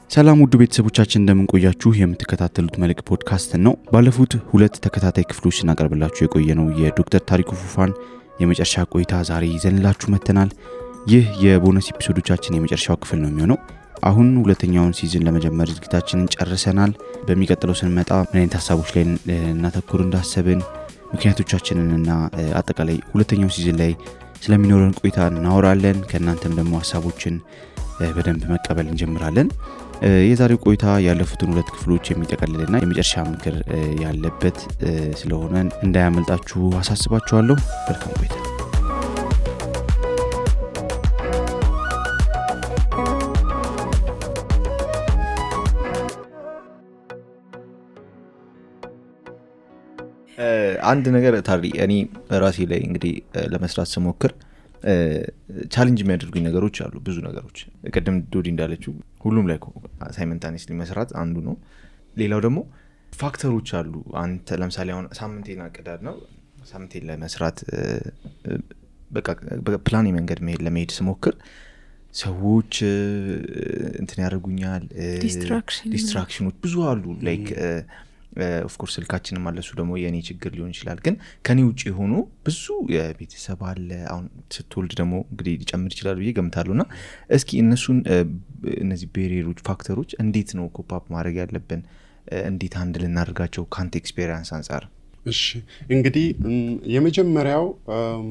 ሰላም ውድ ቤተሰቦቻችን እንደምን ቆያችሁ? የምትከታተሉት መልክ ፖድካስት ነው። ባለፉት 2 ተከታታይ ክፍሎች እናቀርብላችሁ የቆየነው የዶክተር ታሪኩ ፉፋን የመጨረሻ ቆይታ ዛሬ ይዘንላችሁ መተናል። ይህ የቦነስ ኤፒሶዶቻችን የመጨረሻው ክፍል ነው የሚሆነው። አሁን ሁለተኛውን ሲዝን ለመጀመር ዝግጅታችንን ጨርሰናል። በሚቀጥለው ስንመጣ ምን አይነት ሐሳቦች ላይ እናተኩር እንዳሰብን ምክንያቶቻችንንና አጠቃላይ ሁለተኛው ሲዝን ላይ ስለሚኖረን ቆይታ እናወራለን። ከእናንተም ደግሞ ሐሳቦችን በደንብ መቀበል እንጀምራለን። የዛሬው ቆይታ ያለፉትን 2 ክፍሎች የሚጠቀልልና የመጨረሻ ምክር ያለበት ስለሆነ እንዳያመልጣችሁ አሳስባችኋለሁ። መልካም ቆይታ። አንድ ነገር ታሪ እኔ ራሴ ላይ እንግዲህ ለመስራት ስሞክር ቻሌንጅ የሚያደርጉኝ ነገሮች አሉ። ብዙ ነገሮች ቀደም ዶዲ እንዳለችው ሁሉም ላይ ሳይመንታኒስሊ መስራት አንዱ ነው። ሌላው ደግሞ ፋክተሮች አሉ። አንተ ለምሳሌ አሁን ሳምንቴን አቅዳድ ነው ሳምንቴን ለመስራት በቃ በፕላን መንገድ ለመሄድ ስሞክር ሰዎች እንትን ያደርጉኛል። ዲስትራክሽኖች ብዙ አሉ። ላይክ ኦፍ ኮርስ ስልካችንም አለሱ ደግሞ የኔ ችግር ሊሆን ይችላል። ግን ከኔ ውጪ ሆኖ ብዙ የቤተሰብ አለ። አሁን ስትወልድ ደግሞ እንግዲህ ሊጨምር ይችላል ብዬ ገምታለሁና እስኪ እነዚህ ቤሪየሮች ፋክተሮች እንዴት ነው ኮፕ ማድረግ ያለብን? እንዴት አንድ ልናደርጋቸው ካንተ ኤክስፔሪየንስ አንፃር? እሺ እንግዲህ የመጀመሪያው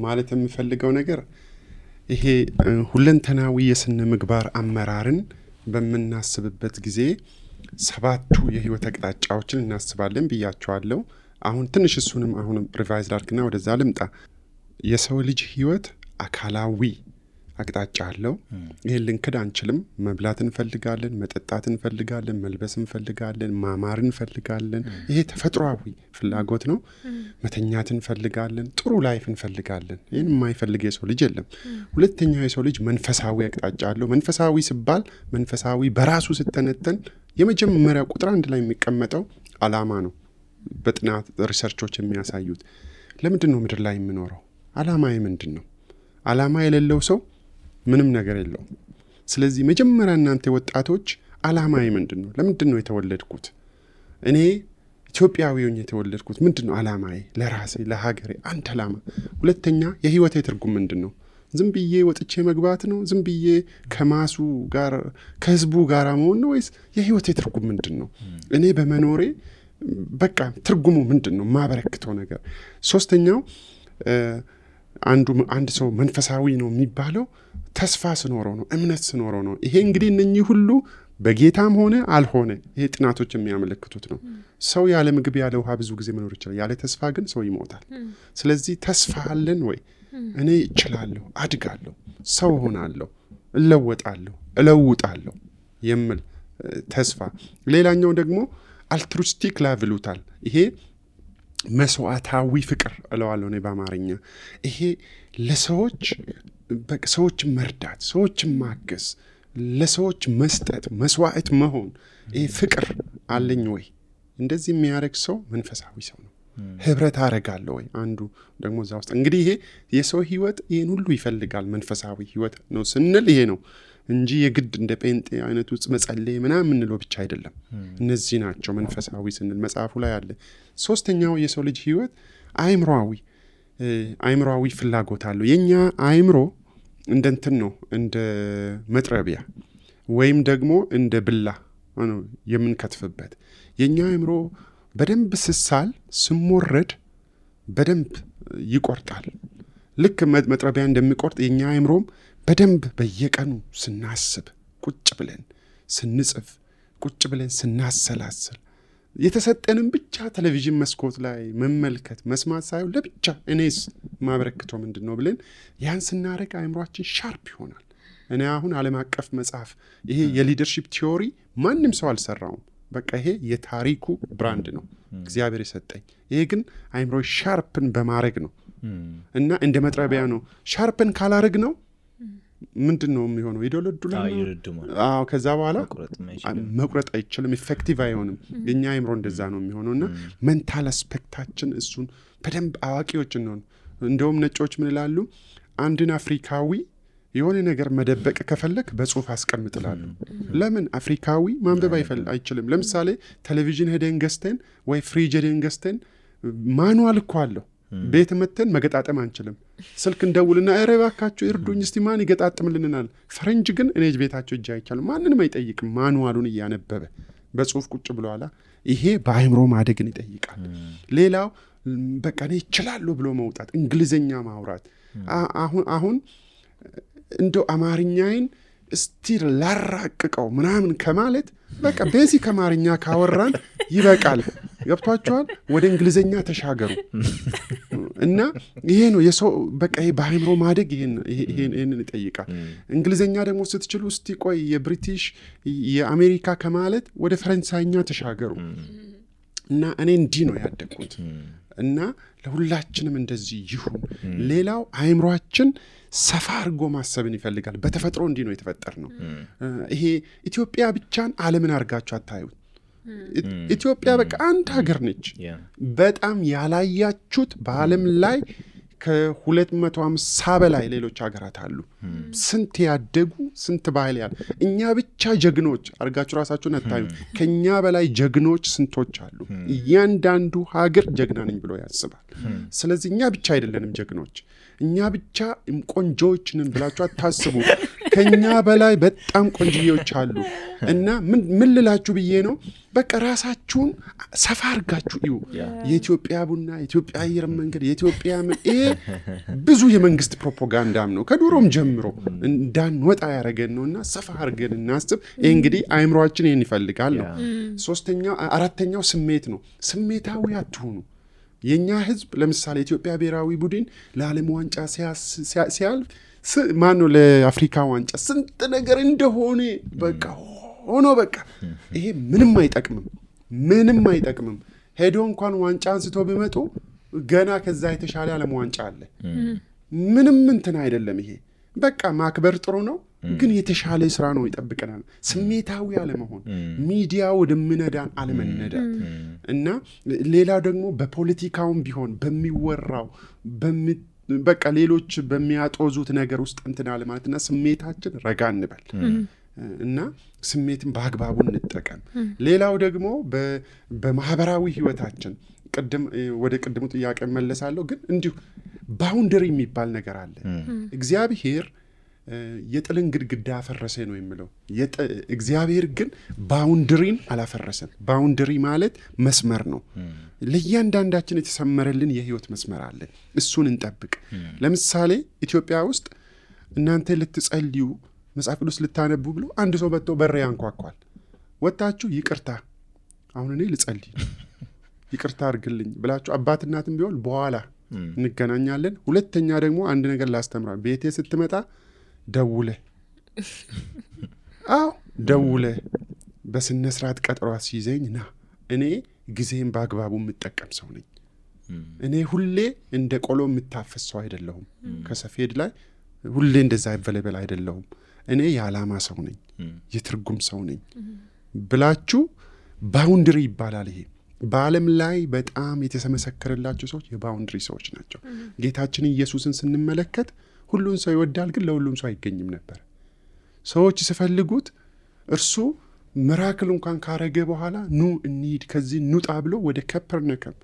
ማለት የምፈልገው ነገር ይሄ ሁለንተናዊ የስነ ምግባር አመራርን በመናስብበት ጊዜ 7 የህይወት አቅጣጫዎችን እናስባለን ብያቸዋለሁ። አሁን ትንሽ እሱንም አሁንም ሪቫይዝ ላድርግና ወደዛ ልምጣ። የሰው ልጅ ህይወት አካላዊ አቅጣጫ አለው። ይሄን ልንክድ አንችልም። መብላት እንፈልጋለን፣ መጠጣት እንፈልጋለን፣ መልበስ እንፈልጋለን፣ ማማር እንፈልጋለን። ይሄ ተፈጥሯዊ ፍላጎት ነው። መተኛት እንፈልጋለን፣ ጥሩ ላይፍ እንፈልጋለን። ይሄን የማይፈልግ የሰው ልጅ የለም። ሁለተኛው የሰው ልጅ መንፈሳዊ አቅጣጫ አለው። መንፈሳዊ ሲባል መንፈሳዊ በራሱ ስተነተን የመጀመሪያው ቁጥር 1 ላይ የሚቀመጠው ዓላማ ነው። በጥናት ሪሰርቾች የሚያሳዩት ለምንድን ነው ምድር ላይ የምኖረው? ዓላማዬ ምንድን ነው? ዓላማ የሌለው ሰው ምንም ነገር የለውም። ስለዚህ መጀመሪያ እናንተ ወጣቶች ዓላማዬ ምንድን ነው? ለምንድን ነው የተወለድኩት? እኔ ኢትዮጵያዊ ሆኜ የተወለድኩት ምንድን ነው ዓላማዬ? ለራሴ ለሀገሬ አንድ ዓላማ። ሁለተኛ የህይወቴ ትርጉም ምንድን ነው? ዝም ብዬ ወጥቼ መግባት ነው? ዝም ብዬ ከማሱ ጋር ከህዝቡ ጋር መሆን ነው? ወይስ የህይወቴ ትርጉም ምንድን ነው? እኔ በመኖሬ በቃ ትርጉሙ ምንድን ነው? ማበረክተው ነገር። ሶስተኛው አንድ ሰው መንፈሳዊ ነው የሚባለው ተስፋ ስኖረው ነው፣ እምነት ስኖረው ነው። ይሄ እንግዲህ እነኚህ ሁሉ በጌታም ሆነ አልሆነ ይሄ ጥናቶች የሚያመለክቱት ነው። ሰው ያለ ምግብ ያለ ውሃ ብዙ ጊዜ መኖር ይችላል። ያለ ተስፋ ግን ሰው ይሞታል። ስለዚህ ተስፋ አለን ወይ? እኔ እችላለሁ፣ አድጋለሁ፣ ሰው ሆናለሁ፣ እለውጣለሁ የሚል ተስፋ። ሌላኛው ደግሞ አልትሩስቲክ ላቭ ይሉታል። ይሄ መስዋዕታዊ ፍቅር እለዋለሁ እኔ በአማርኛ። ይሄ ለሰዎች ሰዎችን መርዳት፣ ሰዎችን ማገዝ፣ ለሰዎች መስጠት፣ መስዋዕት መሆን። ይሄ ፍቅር አለኝ ወይ? እንደዚህ የሚያደርግ ሰው መንፈሳዊ ሰው ነው። ህብረት አረጋለሁ ወይ? አንዱ ደግሞ እዛ ውስጥ እንግዲህ ይሄ የሰው ህይወት ይሄን ሁሉ ይፈልጋል። መንፈሳዊ ህይወት ነው ስንል ይሄ ነው እንጂ የግድ እንደ ጴንጤ አይነት ውስጥ መጸለይ ምናምን እንለው ብቻ አይደለም። እነዚህ ናቸው መንፈሳዊ ስንል መጽሐፉ ላይ አለ። ሶስተኛው የሰው ልጅ ህይወት አእምሮአዊ ፍላጎት አለው። የኛ አእምሮ እንደንትን ነው፣ እንደ መጥረቢያ ወይም ደግሞ እንደ ብላ ነው የምንከትፍበት። የኛ አእምሮ በደንብ ስሳል ስሞረድ በደንብ ይቆርጣል። ልክ መጥረቢያ እንደሚቆርጥ የኛ አእምሮም በደንብ በየቀኑ ስናስብ፣ ቁጭ ብለን ስንጽፍ፣ ቁጭ ብለን ስናሰላስል፣ የተሰጠንን ብቻ ቴሌቪዥን መስኮት ላይ መመልከት መስማት ሳይሆን ለብቻ እኔስ ማበረክተው ምንድን ነው ብለን ያን ስናደርግ አእምሯችን ሻርፕ ይሆናል። እኔ አሁን ዓለም አቀፍ መጽሐፍ ይሄ የሊደርሺፕ ቲዮሪ ማንም ሰው አልሰራውም። በቃ ይሄ የታሪኩ ብራንድ ነው እግዚአብሔር የሰጠኝ። ይሄ ግን አእምሮ ሻርፕን በማድረግ ነው እና እንደ መጥረቢያ ነው። ሻርፕን ካላረግ ነው ምንድን ነው የሚሆነው? ይደለዱላል። አዎ ከዛ በኋላ መቁረጥ አይችልም፣ ኢፌክቲቭ አይሆንም። የኛ አእምሮ እንደዛ ነው የሚሆነውና ሜንታል አስፔክታችን እሱን በደንብ አዋቂዎች ነው። እንደውም ነጮች ምን ይላሉ? አንድን አፍሪካዊ የሆነ ነገር መደበቅ ከፈለክ በጽሁፍ አስቀምጥላሉ። ለምን አፍሪካዊ ማንበብ አይችልም? ለምሳሌ ቴሌቪዥን ሄደን ገዝተን ወይ ፍሪጅ ሄደን ገዝተን ማኑዋል እኮ አለው። ቤት መተን መገጣጠም አንችልም። ስልክ እንደውልና ኧረ እባካችሁ እርዱኝ እስቲ ማን ይገጣጥምልናል? ፈረንጅ ግን እኔ ቤታቸው እጅ አይቻልም። ማንንም አይጠይቅም። ማኑዋሉን እያነበበ በጽሁፍ ቁጭ ብለዋላ። ይሄ በአእምሮ ማደግን ይጠይቃል። ሌላው በቃ እኔ እችላለሁ ብሎ መውጣት፣ እንግሊዘኛ ማውራት። አሁን እንደው አማርኛዬን እስቲ ላራቅቀው ምናምን ከማለት በቃ ቤዚክ አማርኛ ካወራን ይበቃል። ገብቷችኋል? ወደ እንግሊዘኛ ተሻገሩ እና ይሄ ነው የሰው በቃ ይሄ በአእምሮ ማደግ ይሄንን ይጠይቃል። እንግሊዘኛ ደግሞ ስትችሉ እስቲ ቆይ የብሪቲሽ የአሜሪካ ከማለት ወደ ፈረንሳይኛ ተሻገሩ እና እኔ እንዲህ ነው ያደግኩት እና ለሁላችንም እንደዚህ ይሁን። ሌላው አእምሮአችን ሰፋ አድርጎ ማሰብን ይፈልጋል። በተፈጥሮ እንዲህ ነው የተፈጠር ነው። ይሄ ኢትዮጵያ ብቻን ዓለምን አድርጋችሁ አታዩት። ኢትዮጵያ በቃ አንድ ሀገር ነች። በጣም ያላያችሁት በዓለም ላይ ከ250 በላይ ሌሎች ሀገራት አሉ። ስንት ያደጉ ስንት ባህል ያለ። እኛ ብቻ ጀግኖች አድርጋችሁ ራሳችሁን አታዩት። ከኛ በላይ ጀግኖች ስንቶች አሉ። እያንዳንዱ ሀገር ጀግና ነኝ ብሎ ያስባል። ስለዚህ እኛ ብቻ አይደለንም ጀግኖች፣ እኛ ብቻ ቆንጆዎች ነን ብላችሁ አታስቡ። ከኛ በላይ በጣም ቆንጆዎች አሉ እና ምን ልላችሁ ብዬ ነው፣ በቃ ራሳችሁን ሰፋ አድርጋችሁ እዩ። የኢትዮጵያ ቡና፣ የኢትዮጵያ አየር መንገድ፣ የኢትዮጵያ ብዙ የመንግስት ፕሮፓጋንዳም ነው ከዱሮም ጀምሮ እንዳንወጣ ያደረገን ነውና ሰፋ አድርገን እናስብ። ይሄ እንግዲህ አእምሮአችን ይሄን ይፈልጋል ነው። አራተኛው ስሜት ነው። ስሜታዊ አትሁኑ። የኛ ህዝብ ለምሳሌ ኢትዮጵያ ብሔራዊ ቡድን ለዓለም ዋንጫ ሲያልፍ ማነው ለአፍሪካ ዋንጫ ስንት ነገር እንደሆነ በቃ ሆኖ በቃ ይሄ ምንም አይጠቅምም። ሄዶ እንኳን ዋንጫ አንስቶ ቢመጡ ገና ከዛ የተሻለ ዓለም ዋንጫ አለ። ምንም እንትን አይደለም። ይሄ በቃ ማክበር ጥሩ ነው፣ ግን የተሻለ ስራ ነው ይጠብቀናል። ስሜታዊ አለመሆን፣ ሚዲያ ወደምነዳን አለመነዳት እና ሌላው ደግሞ በፖለቲካውም ቢሆን በሚወራው በቃ ሌሎች በሚያጦዙት ነገር ውስጥ እንትን አለማለትና ስሜታችን ረጋ እንበል እና ስሜትን በአግባቡ እንጠቀም። ሌላው ደግሞ በማህበራዊ ህይወታችን ወደ ቅድሙ ጥያቄ መለሳለሁ፣ ግን እንዲሁ ባውንደሪ የሚባል ነገር አለ። እግዚአብሔር የጥልን ግድግዳ አፈረሰ ነው የሚለው። እግዚአብሔር ግን ባውንደሪን አላፈረሰም። ባውንደሪ ማለት መስመር ነው። ለእያንዳንዳችን የተሰመረልን የህይወት መስመር አለ። እሱን እንጠብቅ። ለምሳሌ ኢትዮጵያ ውስጥ እናንተ ልትጸልዩ መጽሐፍ ቅዱስ ልታነቡ ብሎ አንድ ሰው መጥቶ በር ያንኳኳል። ወጣችሁ ይቅርታ አሁን እኔ ልጸልይ ይቅርታ አድርግልኝ ብላችሁ አባት እናትም ቢሆን በኋላ እንገናኛለን። ሁለተኛ ደግሞ አንድ ነገር ላስተምራ፣ ቤቴ ስትመጣ ደውለ በስነ ስርዓት ቀጠሮ አስይዘኝ ና። እኔ ጊዜን በአግባቡ የምጠቀም ሰው ነኝ። እኔ ሁሌ እንደ ቆሎ የምታፈስ ሰው አይደለሁም። ከሰፌድ ላይ ሁሌ እንደዛ ይበለበል አይደለሁም። እኔ የዓላማ ሰው ነኝ፣ የትርጉም ሰው ነኝ ብላችሁ ባውንደሪ ይባላል። ይሄ በዓለም ላይ በጣም የተመሰከረላቸው ሰዎች የባውንደሪ ሰዎች ናቸው። ጌታችን ኢየሱስን ስንመለከት ሁሉን ሰው ይወዳል፣ ግን ለሁሉም ሰው አይገኝም ነበር። ሰዎች ሲፈልጉት እርሱ ሚራክል እንኳን ካረገ በኋላ ኑ እንሂድ ከዚህ ኑጣ ብሎ ወደ ከፐርነከም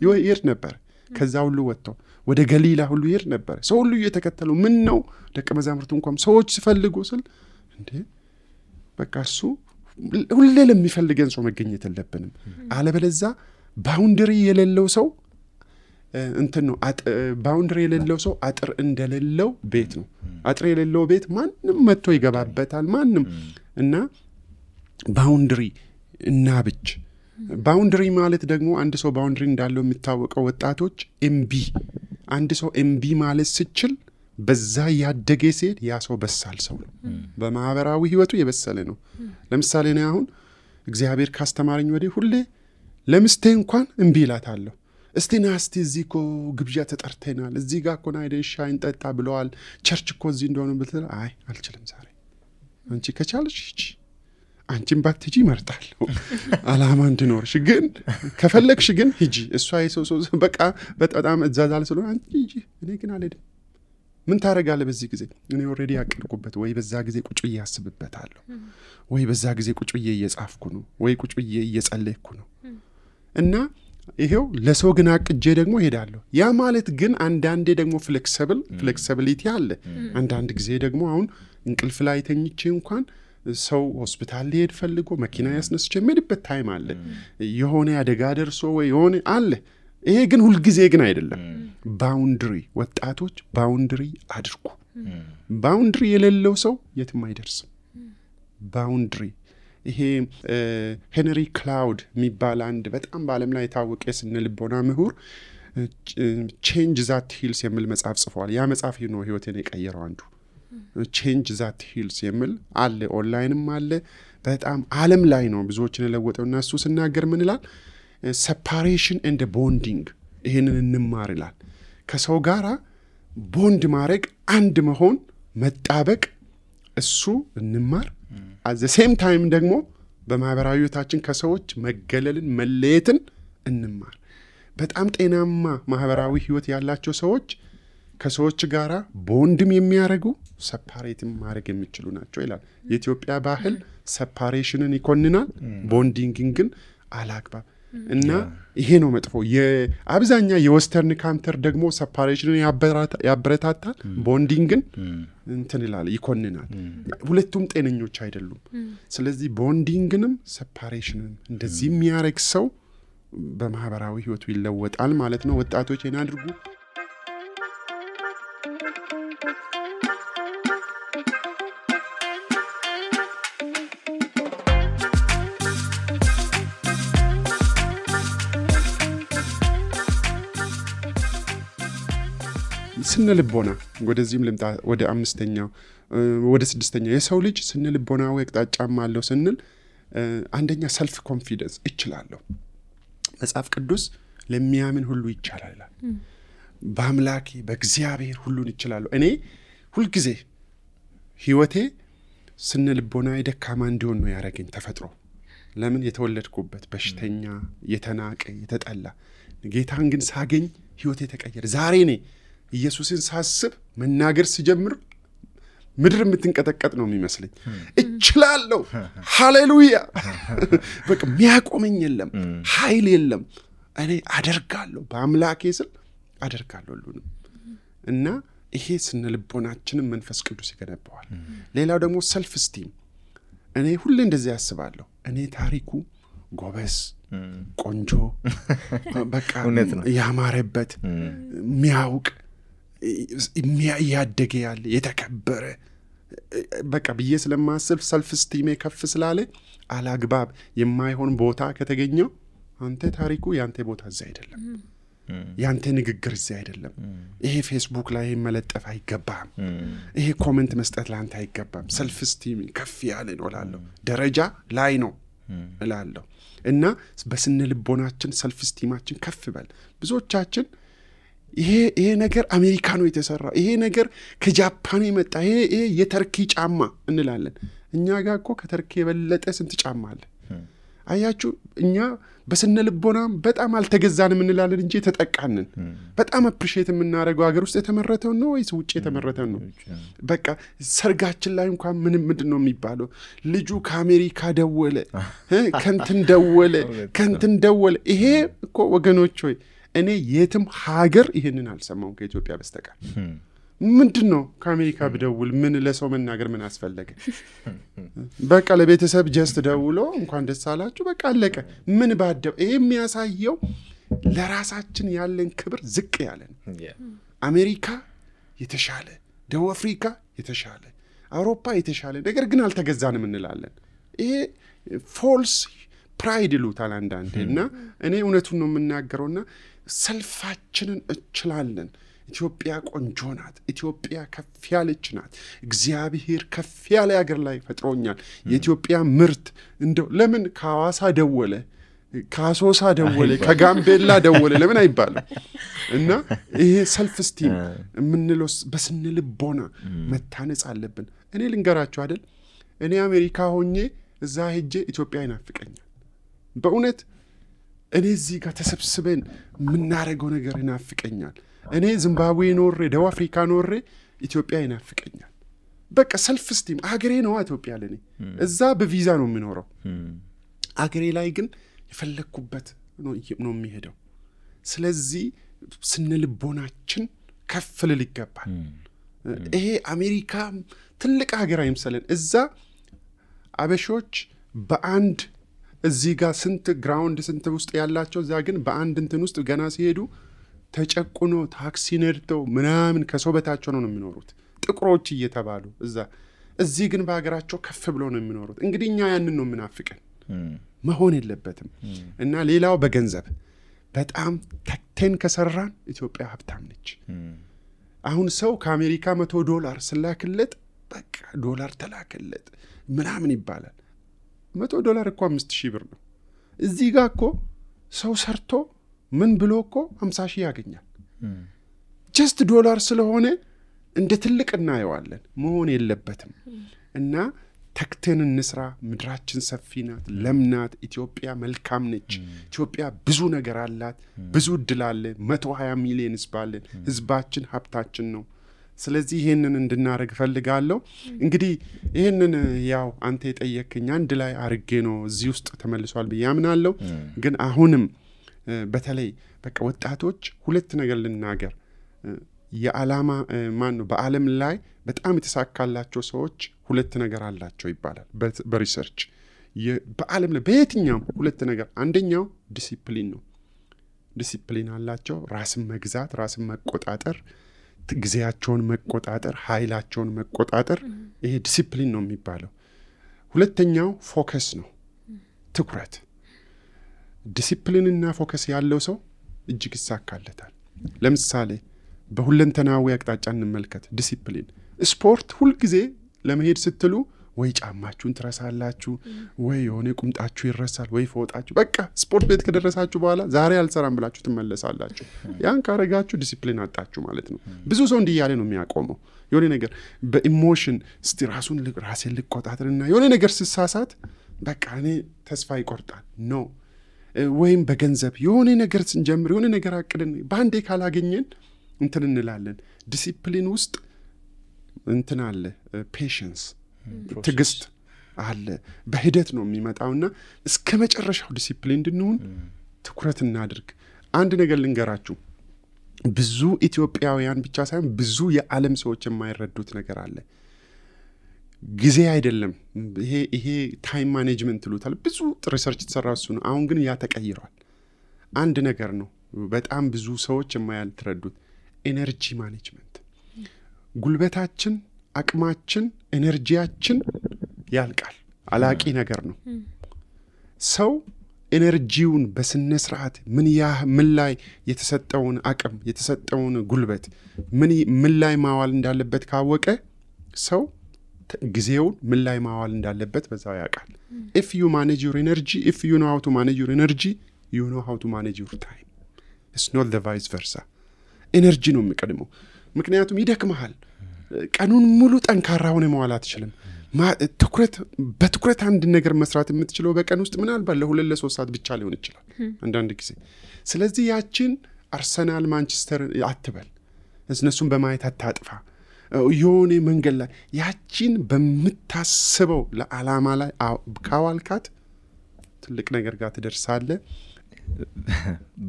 ይሄድ ነበር። ከዛ ሁሉ ወጥቶ ወደ ገሊላ ሁሉ ይሄድ ነበር። ሰው ሁሉ እየተከተለው ምን ነው ደቀ መዛሙርቱ እንኳን ሰዎች ሲፈልጉ ስል እንዴ በቃ እርሱ ሁሌ ለሚፈልገን ሰው መገኘት የለብንም። አለበለዛ ባውንደሪ የሌለው ሰው እንትን ነው። ባውንደሪ የሌለው ሰው አጥር እንደሌለው ቤት ነው። አጥር የሌለው ቤት ማንም መጥቶ ይገባበታል ማንም። እና ባውንደሪ እናብጅ። ባውንደሪ ማለት ደግሞ አንድ ሰው ባውንደሪ እንዳለው የሚታወቀው ወጣቶች አንድ ሰው ኤምቢ ማለት ሲችል በዛ ያደገ ሲሄድ ያ ሰው በሳል ሰው ነው። በማህበራዊ ህይወቱ የበሰለ ነው። ለምሳሌ እኔ አሁን እግዚአብሔር ካስተማረኝ ወዲህ ሁሌ ለምስቴ እንኳን እምቢ እላታለሁ። እስቲ ና እስቲ እዚህ እኮ ግብዣ ተጠርተናል፣ እዚህ ጋር እኮ ና ሄደን ሻይ እንጠጣ ብለዋል፣ ቸርች እኮ እዚህ እንደሆነ ብትል አይ አልችልም ዛሬ። አንቺ ከቻልሽ ሂጂ፣ አንቺን ባትሄጂ እመርጣለሁ አላማ እንድኖርሽ። ግን ከፈለግሽ ግን ሂጂ። እሷ የሰው በቃ በጣም እዛዛል ስለሆነ አንቺ ሂጂ፣ እኔ ግን አልሄድም። ምን ታደርጋለህ በዚህ ጊዜ? እኔ ኦልሬዲ ያቀድኩበት ወይ በዛ ጊዜ ቁጭ ብዬ ያስብበታለሁ ወይ በዛ ጊዜ ቁጭ ብዬ እየጻፍኩ ነው ወይ ቁጭ ብዬ እየጸለይኩ ነው እና ይሄው ለሰው ግን አቅጄ ደግሞ ሄዳለሁ። ያ ማለት ግን አንዳንዴ ደግሞ ፍሌክሲቢሊቲ አለ። አንዳንድ ጊዜ ደግሞ አሁን እንቅልፍ ላይ ተኝቼ እንኳን ሰው ሆስፒታል ሊሄድ ፈልጎ መኪና ያስነስቼ የምሄድበት ታይም አለ። የሆነ አደጋ ደርሶ ወይ የሆነ አለ። ይሄ ግን ሁልጊዜ ግን አይደለም። ባውንድሪ ወጣቶች ባውንድሪ አድርጉ። ባውንድሪ የሌለው ሰው የትም አይደርስም። ባውንድሪ ይሄ ሄንሪ ክላውድ የሚባል አንድ በጣም በዓለም ላይ የታወቀ የስነ ልቦና ምሁር ቼንጅ ዛት ሂልስ የሚል መጽሐፍ ጽፏል። ያ መጽሐፍ ነው ህይወቴን የቀየረው አንዱ። ቼንጅ ዛት ሂልስ የሚል አለ፣ ኦንላይንም አለ። በጣም ዓለም ላይ ነው ብዙዎችን የለወጠውና እሱ ሲናገር ምን ይላል? ሴፓሬሽን ኤንድ ቦንዲንግ ይሄንን እንማር ይላል። ከሰው ጋራ ቦንድ ማድረግ፣ አንድ መሆን፣ መጣበቅ፣ እሱ እንማር። at the same time ደግሞ በማህበራዊ ህይወታችን ከሰዎች መገለልን መለየትን እንማር። በጣም ጤናማ ማህበራዊ ህይወት ያላቸው ሰዎች ከሰዎች ጋራ ቦንድም የሚያደርጉ ሰፓሬትም ማድረግ የሚችሉ ናቸው ይላል። የኢትዮጵያ ባህል ሰፓሬሽንን ይኮንናል፣ ቦንዲንግን ግን አላግባብ እና ይሄ ነው መጥፎ። የአብዛኛ የዌስተርን ካንተር ደግሞ ሰፓሬሽንን ያበረታታል፣ ቦንዲንግን እንትን ይላል፣ ይኮንናል። ሁለቱም ጤነኞች አይደሉም። ስለዚህ ቦንዲንግንም ሰፓሬሽንን እንደዚህ የሚያደርግ ሰው በማህበራዊ ህይወቱ ይለወጣል ማለት ነው። ወጣቶች ይሄን አድርጉ። ስነ ልቦና ወደዚህም ልምጣ። ወደ አምስተኛው ወደ ስድስተኛው የሰው ልጅ ስነ ልቦናዊ አቅጣጫም አለው ስንል አንደኛ ሰልፍ ኮንፊደንስ እችላለሁ። መጽሐፍ ቅዱስ ለሚያምን ሁሉ ይቻላል ይላል። በአምላኬ በእግዚአብሔር ሁሉን ይችላለሁ። እኔ ሁልጊዜ ህይወቴ ስነ ልቦናዊ ደካማ እንዲሆን ነው ያደረገኝ ተፈጥሮ። ለምን? የተወለድኩበት በሽተኛ፣ የተናቀ፣ የተጠላ። ጌታን ግን ሳገኝ ህይወቴ ተቀየረ። ዛሬ እኔ ኢየሱስን ሳስብ መናገር ሲጀምር ምድር የምትንቀጠቀጥ ነው የሚመስለኝ። እችላለሁ፣ ሃሌሉያ። በቃ የሚያቆመኝ የለም፣ ኃይል የለም። እኔ አደርጋለሁ፣ በአምላኬ ስል አደርጋለሁ ሁሉንም። እና ይሄ ስነ ልቦናችንን መንፈስ ቅዱስ ይገነባዋል። ሌላው ደግሞ ሰልፍ ስቲም። እኔ ሁሌ እንደዚህ ያስባለሁ፣ እኔ ታሪኩ ጎበዝ፣ ቆንጆ፣ በቃ ያማረበት፣ የሚያውቅ ያደገ ያለ የተከበረ በቃ ብዬ ስለማስብ ሰልፍ ስቲሜ ከፍ ስላለ አላግባብ የማይሆን ቦታ ከተገኘው አንተ ታሪኩ ያንተ ቦታ እዚህ አይደለም፣ ያንተ ንግግር እዚህ አይደለም፣ ይሄ ፌስቡክ ላይ መለጠፍ አይገባም፣ ይሄ ኮሜንት መስጠት ለአንተ አይገባም። ሰልፍ ስቲም ከፍ ያለ ነው እላለሁ፣ ደረጃ ላይ ነው እላለሁ። እና በስነ ልቦናችን ሰልፍ ስቲማችን ከፍ በል። ብዙዎቻችን ይሄ ነገር አሜሪካ ነው የተሰራው፣ ይሄ ነገር ከጃፓን የመጣ፣ ይሄ የተርኪ ጫማ እንላለን። እኛ ጋር እኮ ከተርኪ የበለጠ ስንት ጫማ አለ። አያችሁ፣ እኛ በስነ ልቦናም በጣም አልተገዛንም እንላለን እንጂ ተጠቃንን። በጣም አፕሪሼት የምናደርገው ሀገር ውስጥ የተመረተው ነው ወይስ ውጭ የተመረተው ነው? በቃ ሰርጋችን ላይ እንኳን ምንድን ነው የሚባለው? ልጁ ከአሜሪካ ደወለ፣ ከንትን ደወለ። ይሄ እኮ ወገኖች ሆይ እኔ የትም ሀገር ይሄንን አልሰማውም ከኢትዮጵያ በስተቀር። ምንድን ነው ከአሜሪካ ብደውል ምን ለሰው መናገር ምን አስፈለገ? በቃ ለቤተሰብ ጀስት ደውሎ እንኳን ደስ አላችሁ በቃ አለቀ። ምን ባደው? ይሄ የሚያሳየው ለራሳችን ያለን ክብር ዝቅ ያለ ነው። አሜሪካ የተሻለ፣ ደቡብ አፍሪካ የተሻለ፣ አውሮፓ የተሻለ፣ ነገር ግን አልተገዛንም እንላለን። ይሄ ፎልስ ፕራይድ ይሉታል አንዳንዴ። እና እኔ እውነቱን ነው የምናገረውና ሰልፋችንን እችላለን። ኢትዮጵያ ቆንጆ ናት። ኢትዮጵያ ከፍ ያለች ናት። እግዚአብሔር ከፍ ያለ ሀገር ላይ ፈጥሮኛል። የኢትዮጵያ ምርት እንደው ለምን ከሐዋሳ ደወለ፣ ከአሶሳ ደወለ፣ ከጋምቤላ ደወለ ለምን አይባልም? እና ይሄ ሰልፍ ስቲም የምንለው በስነ ልቦና መታነጽ አለብን። እኔ ልንገራችሁ አይደል፣ እኔ አሜሪካ ሆኜ እዛ ሄጄ ኢትዮጵያ ይናፍቀኛል በእውነት። እኔ እዚህ ጋር ተሰብስበን የምናደርገው ነገር ይናፍቀኛል። እኔ ዚምባብዌ ኖሬ፣ ደቡብ አፍሪካ ኖሬ ኢትዮጵያ ይናፍቀኛል። በቃ ሰልፍ ስቲም አገሬ ነው ኢትዮጵያ ለኔ። እዛ በቪዛ ነው የምኖረው። አገሬ ላይ ግን የፈለኩበት ነው የሚሄደው። ስለዚህ ስነልቦናችን ከፍ ልል ይገባል። ይሄ አሜሪካ ትልቅ ሀገር አይምሰለን። እዛ አበሾች በአንድ እዚህ ጋር ስንት ግራውንድ ስንት ውስጥ ያላቸው እዛ ግን በአንድ እንትን ውስጥ ገና ሲሄዱ ተጨቁኖ ታክሲ ነድተው ምናምን ከሰው በታቸው ነው የሚኖሩት ጥቁሮች እየተባሉ እዛ። እዚህ ግን በሀገራቸው ከፍ ብሎ ነው የሚኖሩት። እንግዲህ እኛ ያንን ነው የምናፍቀን። መሆን የለበትም። እና ሌላው በገንዘብ በጣም ተክተን ከሰራን ኢትዮጵያ ሀብታም ነች። አሁን ሰው ከአሜሪካ $100 ስላክለት በቃ ዶላር ተላከለት ምናምን ይባላል። $100 እኮ 5000 ብር ነው። እዚህ ጋር እኮ ሰው ሰርቶ ምን ብሎ እኮ 50,000 ያገኛል። ጀስት ዶላር ስለሆነ እንደ ትልቅ እናየዋለን። መሆን የለበትም። እና ተክተን እንስራ። ምድራችን ሰፊ ናት፣ ለምናት። ኢትዮጵያ መልካም ነች። ኢትዮጵያ ብዙ ነገር አላት፣ ብዙ እድል አለ። 120 ሚሊዮን ህዝብ አለን። ህዝባችን ሀብታችን ነው። ስለዚህ ይሄንን እንድናረግ ፈልጋለሁ። እንግዲህ ይሄንን ያው አንተ የጠየቅኝ አንድ ላይ አርጌ ነው እዚህ ውስጥ ተመልሷል ብዬ አምናለሁ። ግን አሁንም በተለይ በቃ ወጣቶች ሁለት ነገር ልናገር። የዓላማ ማን ነው በዓለም ላይ በጣም የተሳካላቸው ሰዎች ሁለት ነገር አላቸው ይባላል በሪሰርች። በዓለም ላይ በየትኛው ሁለት ነገር፣ አንደኛው ዲሲፕሊን ነው። ዲሲፕሊን አላቸው። ራስን መግዛት፣ ራስን መቆጣጠር፣ ጊዜያቸውን መቆጣጠር፣ ኃይላቸውን መቆጣጠር። ይሄ ዲሲፕሊን ነው የሚባለው። ሁለተኛው ፎከስ ነው፣ ትኩረት። ዲሲፕሊንና ፎከስ ያለው ሰው እጅግ ይሳካለታል። ለምሳሌ በሁለንተናዊ አቅጣጫ እንመልከት። ዲሲፕሊን ስፖርት ሁልጊዜ ለመሄድ ስትሉ ወይ ጫማችሁን ትረሳላችሁ፣ ወይ የሆነ ቁምጣችሁ ይረሳል፣ ወይ ፎጣችሁ። በቃ ስፖርት ቤት ከደረሳችሁ በኋላ ዛሬ አልሰራም ብላችሁ ትመለሳላችሁ። ያን ካረጋችሁ ዲሲፕሊን አጣችሁ ማለት ነው። ብዙ ሰው እንዲህ ያለ ነው የሚያቆመው። የሆነ ነገር በኢሞሽን እስቲ ራሴን ልቆጣጠርና የሆነ ነገር ስሳሳት በቃ እኔ ተስፋ ይቆርጣል ነው። ወይም በገንዘብ የሆነ ነገር ስንጀምር የሆነ ነገር አቅደን በአንዴ ካላገኘን እንትን እንላለን። ዲሲፕሊን ውስጥ እንትን አለ፣ ፔሽንስ ትግስት አለ። በሂደት ነው የሚመጣውና እስከ መጨረሻው ዲሲፕሊን እንድንሆን ትኩረት እናድርግ። አንድ ነገር ልንገራችሁ። ብዙ ኢትዮጵያውያን ብቻ ሳይሆን ብዙ የዓለም ሰዎች የማይረዱት ነገር አለ። ጊዜ አይደለም ይሄ ታይም ማኔጅመንት ይሉታል። ብዙ ሪሰርች የተሰራ እሱ ነው። አሁን ግን ያ ተቀይሯል። አንድ ነገር ነው በጣም ብዙ ሰዎች የማያልተረዱት፣ ኤነርጂ ማኔጅመንት። ጉልበታችን፣ አቅማችን፣ ኤነርጂያችን ያልቃል። አላቂ ነገር ነው። ሰው ኤነርጂውን በስነ ስርዓት ምን ላይ የተሰጠውን አቅም የተሰጠውን ጉልበት ምን ላይ ማዋል እንዳለበት ካወቀ ሰው ጊዜውን ምን ላይ ማዋል እንዳለበት በዛው ያውቃል። if you manage your energy, if you know how to manage your energy, you know how to manage your time. It's not the vice versa. ኤነርጂ ነው የሚቀድመው። ምክንያቱም ይደክመሃል። ቀኑን ሙሉ ጠንካራ ሆነ መዋል አትችልም። በትኩረት አንድ ነገር መስራት የምትችለው በቀን ውስጥ ምናልባት ለ2-3 ሰዓት ብቻ ሊሆን ይችላል አንዳንድ ጊዜ። ስለዚህ ያችን አርሰናል ማንቸስተር አትበል፣ እነሱን በማየት አታጥፋ። የሆነ መንገድ ላይ ያችን በምታስበው ለዓላማ ላይ ካዋልካት ትልቅ ነገር ጋር ትደርሳለህ።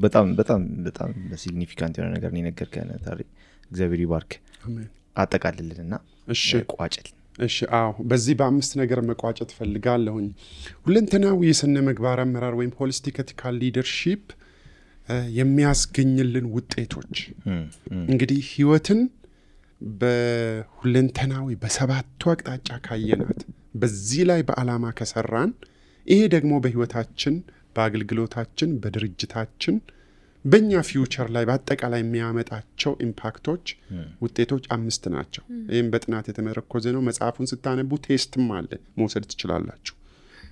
በጣም በጣም በጣም ሲግኒፊካንት የሆነ ነገር ነው የነገርከን ታሪ። እግዚአብሔር ይባርክ። አሜን። አጠቃልልና እሺ ቋጭል። እሺ በዚህ በ5 ነገር መቋጨት ፈልጋለሁኝ። ሁለንተናዊ የስነ ምግባር አመራር ወይም ሆሊስቲክ ኤቲካል ሊደርሺፕ የሚያስገኝልን ውጤቶች እንግዲህ ህይወትን በሁለንተናዊ በሰባቱ አቅጣጫ ካየናት በዚህ ላይ በዓላማ ከሰራን ይሄ ደግሞ በህይወታችን በአገልግሎታችን በድርጅታችን በእኛ ፊውቸር ላይ በአጠቃላይ የሚያመጣቸው ኢምፓክቶች ውጤቶች 5 ናቸው። ይህም በጥናት የተመረኮዘ ነው። መጽሐፉን ስታነቡ ቴስትም አለ መውሰድ ትችላላችሁ።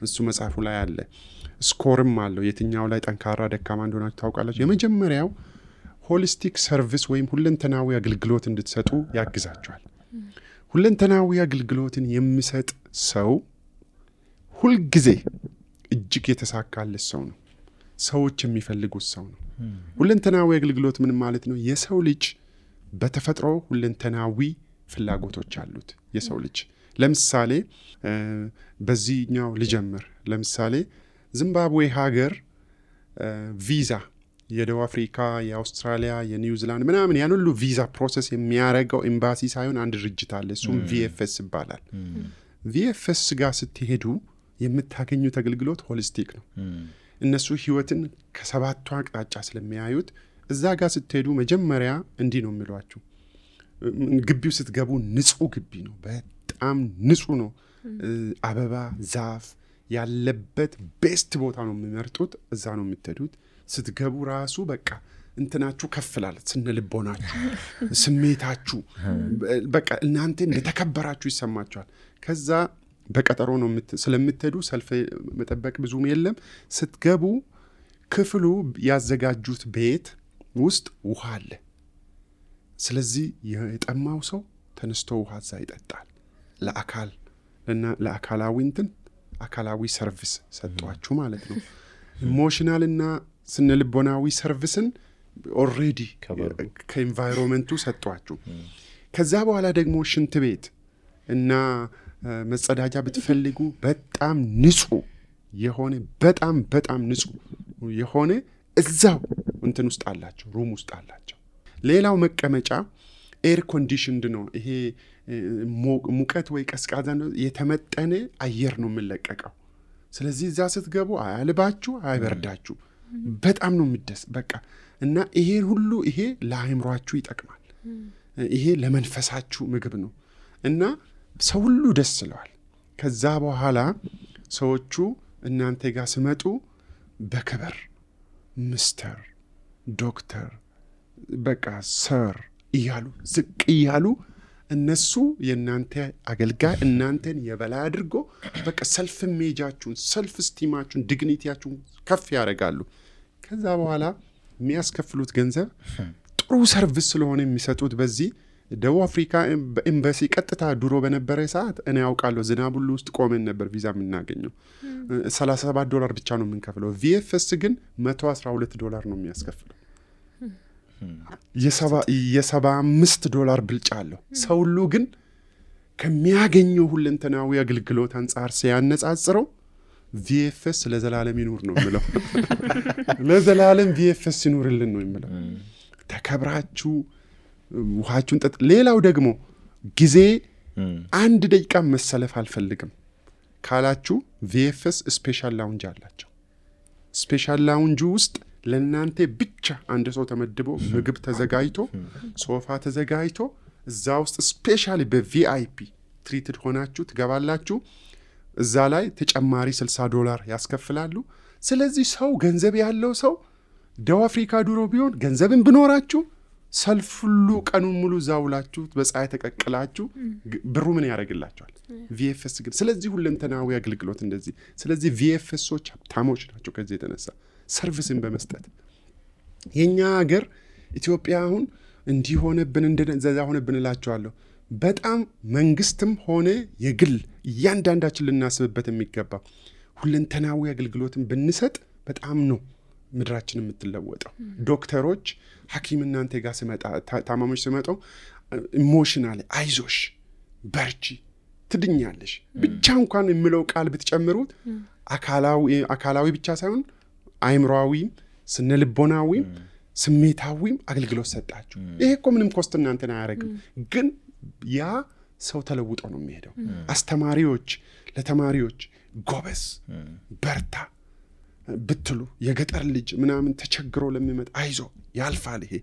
እሱ መጽሐፉ ላይ አለ። ስኮርም አለው። የትኛው ላይ ጠንካራ ደካማ እንደሆናችሁ ታውቃላችሁ። የመጀመሪያው ሆሊስቲክ ሰርቪስ ወይም ሁለንተናዊ አገልግሎት እንድትሰጡ ያግዛችኋል። ሁለንተናዊ አገልግሎትን የሚሰጥ ሰው ሁልጊዜ እጅግ የተሳካለት ሰው ነው። ሰዎች የሚፈልጉት ሰው ነው። ሁለንተናዊ አገልግሎት ምን ማለት ነው? የሰው ልጅ በተፈጥሮ ሁለንተናዊ ፍላጎቶች አሉት የሰው ልጅ። ለምሳሌ በዚህኛው ልጀምር። ለምሳሌ ዚምባብዌ ሀገር ቪዛ የደቡብ አፍሪካ፣ የአውስትራሊያ፣ የኒውዚላንድ ምናምን ያን ሁሉ ቪዛ ፕሮሰስ የሚያደርገው ኤምባሲ ሳይሆን አንድ ድርጅት አለ። እሱም ቪኤፍኤስ ይባላል። ቪኤፍኤስ ጋር ስትሄዱ የምታገኙት አገልግሎት ሆሊስቲክ ነው። እነሱ ህይወትን ከሰባቱ አቅጣጫ ስለሚያዩት እዛ ጋር ስትሄዱ መጀመሪያ እንዲህ ነው የሚሏችሁ። ግቢው ስትገቡ ንጹህ ግቢ ነው፣ በጣም ንጹህ ነው። አበባ ዛፍ ያለበት ቤስት ቦታ ነው የሚመርጡት። እዛ ነው የምትሄዱት። ስትገቡ ራሱ በቃ እንትናችሁ ከፍላል፣ ስነልቦናችሁ፣ ስሜታችሁ በቃ እናንተ እንደተከበራችሁ ይሰማችኋል። ከዛ በቀጠሮ ነው ስለምትሄዱ ሰልፍ መጠበቅ ብዙም የለም። ስትገቡ ክፍሉ ያዘጋጁት ቤት ውስጥ ውሃ አለ። ስለዚህ የጠማው ሰው ተነስቶ ውሃ እዛ ይጠጣል። ለአካላዊ አካላዊ ሰርቪስ ሰጧችሁ ማለት ነው። ኢሞሽናልና ስነልቦናዊ ሰርቪስን ኦልሬዲ ከኤንቫይሮንመንቱ ሰጧችሁ። ከዛ በኋላ ደግሞ ሽንት ቤት እና መጸዳጃ ብትፈልጉ በጣም ንጹህ የሆነ በጣም ንጹህ የሆነ እዛው እንትን ውስጥ አላቸው፣ ሩም ውስጥ አላቸው። ሌላው መቀመጫ ኤር ኮንዲሽንድ ነው። ይሄ ሙቀት ወይ ቀዝቃዛ ነው፣ የተመጠነ አየር ነው የሚለቀቀው። ስለዚህ እዛ ስትገቡ አያልባችሁ፣ አይበርዳችሁ። በጣም ነው የሚደስ በቃ። እና ይሄ ሁሉ ይሄ ለአእምሯችሁ ይጠቅማል። ይሄ ለመንፈሳችሁ ምግብ ነው። እና ሰው ሁሉ ደስ ይለዋል። ከዛ በኋላ ሰዎቹ እናንተ ጋር ሲመጡ በክብር ሚስተር፣ ዶክተር፣ በቃ ሰር እያሉ ዝቅ እያሉ እነሱ የእናንተ አገልጋይ እናንተን የበላይ አድርጎ በቃ ሰልፍ ኢሜጃችሁን፣ ሰልፍ ስቲማችሁን፣ ዲግኒቲያችሁን ከፍ ያደርጋሉ። ከዛ በኋላ የሚያስከፍሉት ገንዘብ ጥሩ ሰርቪስ ስለሆነ የሚሰጡት በዚህ ደቡብ አፍሪካ በኤምባሲ ቀጥታ ድሮ በነበረ ሰዓት እኔ ያውቃለሁ ዝናብ ሁሉ ውስጥ ቆመን ነበር ቪዛ የምናገኘው። $37 ብቻ ነው የምንከፍለው። ቪኤፍኤስ ግን $112 ነው የሚያስከፍለው። $75 ብልጫ አለው። ሰው ሁሉ ግን ከሚያገኘው ሁለንተናዊ አገልግሎት አንጻር ሲያነጻጽረው ቪኤፍኤስ ለዘላለም ይኑር ነው የምለው። ለዘላለም ቪኤፍኤስ ይኑርልን ነው የምለው። ተከብራችሁ ውሃችሁን ጠጥ። ሌላው ደግሞ ጊዜ 1 ደቂቃ መሰለፍ አልፈልግም ካላችሁ ቪኤፍኤስ ስፔሻል ላውንጅ አላቸው። ስፔሻል ላውንጅ ውስጥ ለእናንተ ብቻ አንድ ሰው ተመድቦ ምግብ ተዘጋጅቶ ሶፋ ተዘጋጅቶ እዛ ውስጥ ስፔሻሊ በቪአይፒ ትሪትድ ሆናችሁ ትገባላችሁ። እዛ ላይ ተጨማሪ $60 ያስከፍላሉ። ስለዚህ ሰው ገንዘብ ያለው ሰው ደቡብ አፍሪካ ድሮ ቢሆን ገንዘብን ብኖራችሁ ሰልፍ ሁሉ ቀኑን ሙሉ ዛውላችሁ በፀሐይ ተቀቅላችሁ ብሩ ምን ያደርግላችኋል? ቪኤፍኤስ ግን ስለዚህ ሁለንተናዊ አገልግሎት እንደዚህ። ስለዚህ ቪኤፍኤሶች ሀብታሞች ናቸው ከዚህ የተነሳ ሰርቪስን በመስጠት። የኛ ሀገር ኢትዮጵያ አሁን እንዲሆነብን እንደዛ ሆነብን እላችኋለሁ። በጣም መንግስትም ሆነ የግል እያንዳንዳችን ልናስብበት የሚገባ ሁለንተናዊ አገልግሎትን ብንሰጥ በጣም ነው ምድራችን የምትለወጠው። ዶክተሮች ሐኪም እናንተ ጋር ሲመጣ ታማሚዎች ሲመጣው ኢሞሽናሊ አይዞሽ በርቺ ትድኛለሽ ብቻ እንኳን የሚለው ቃል ብትጨምሩት አካላዊ ብቻ ሳይሆን አእምሮአዊም ስነልቦናዊም ስሜታዊም አገልግሎት ሰጣችሁ። ይሄ እኮ ምንም ኮስት እናንተን አያደርግም፣ ግን ያ ሰው ተለውጦ ነው የሚሄደው። አስተማሪዎች ለተማሪዎች ጎበዝ በርታ ብትሉ የገጠር ልጅ ምናምን ተቸግሮ ለሚመጣ አይዞ ያልፋል፣ ይሄ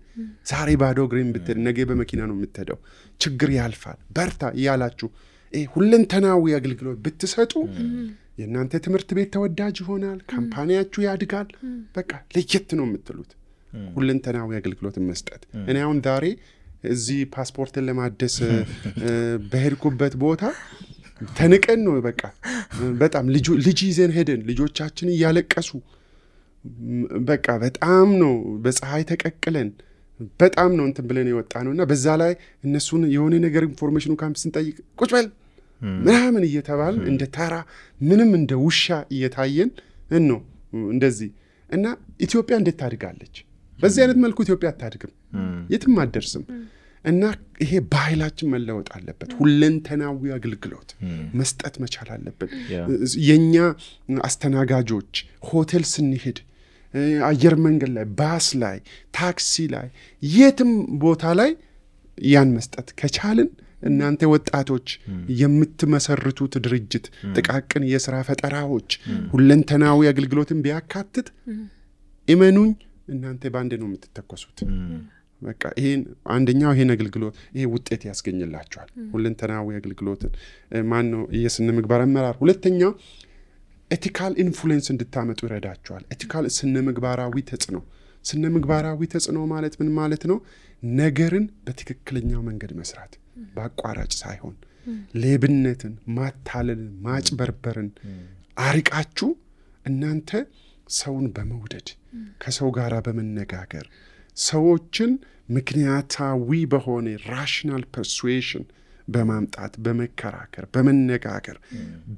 ዛሬ ባዶ እግሬን ብትሄድ ነገ በመኪና ነው የምትሄደው፣ ችግር ያልፋል በርታ እያላችሁ ሁለንተናዊ አገልግሎት ብትሰጡ የእናንተ ትምህርት ቤት ተወዳጅ ይሆናል፣ ካምፓኒያችሁ ያድጋል። በቃ ለየት ነው የምትሉት ሁለንተናዊ አገልግሎት መስጠት። እኔ አሁን ዛሬ እዚህ ፓስፖርትን ለማደስ በሄድኩበት ቦታ ተንቀን ነው በቃ በጣም ልጅ ይዘን ሄደን ልጆቻችን እያለቀሱ በቃ በጣም ነው በፀሐይ ተቀቅለን በጣም ነው እንትን ብለን የወጣ ነውና በዛ ላይ እነሱን የሆነ ነገር ኢንፎርሜሽኑ ካምፕ ስንጠይቅ ቁጭ በል ምናምን እየተባል እንደ ተራ ምንም እንደ ውሻ እየታየን ነው እንደዚህ። እና ኢትዮጵያ እንዴት ታድጋለች? በዚህ አይነት መልኩ ኢትዮጵያ አታድግም፣ የትም አትደርስም። እና ይሄ ባህላችን መለወጥ አለበት። ሁለንተናዊ አገልግሎት መስጠት መቻል አለበት። የኛ አስተናጋጆች ሆቴል ስንሄድ፣ አየር መንገድ ላይ፣ ባስ ላይ፣ ታክሲ ላይ፣ የትም ቦታ ላይ ያን መስጠት ከቻልን እናንተ ወጣቶች የምትመሰርቱት ድርጅት ጥቃቅን የሥራ ፈጠራዎች ሁለንተናዊ አገልግሎትን ቢያካትት እመኑኝ እናንተ ባንዴ ነው የምትተኮሱት። በቃ ይሄን አንደኛው ይሄን አገልግሎት ይሄ ውጤት ያስገኝላችኋል። ሁለንተናዊ አገልግሎትን ማን ነው የስነ ምግባር አመራር። ሁለተኛው ኤቲካል ኢንፍሉዌንስ እንድታመጡ ይረዳችኋል። ኤቲካል ስነ ምግባራዊ ተጽዕኖ። ስነ ምግባራዊ ተጽዕኖ ማለት ምን ማለት ነው? ነገርን በትክክለኛው መንገድ መስራት፣ በአቋራጭ ሳይሆን ሌብነትን፣ ማታለልን፣ ማጭበርበርን አርቃችሁ እናንተ ሰውን በመውደድ ከሰው ጋር በመነጋገር ሰዎችን ምክንያታዊ በሆነ ራሽናል ፐርሱዌሽን በማምጣት በመከራከር በመነጋገር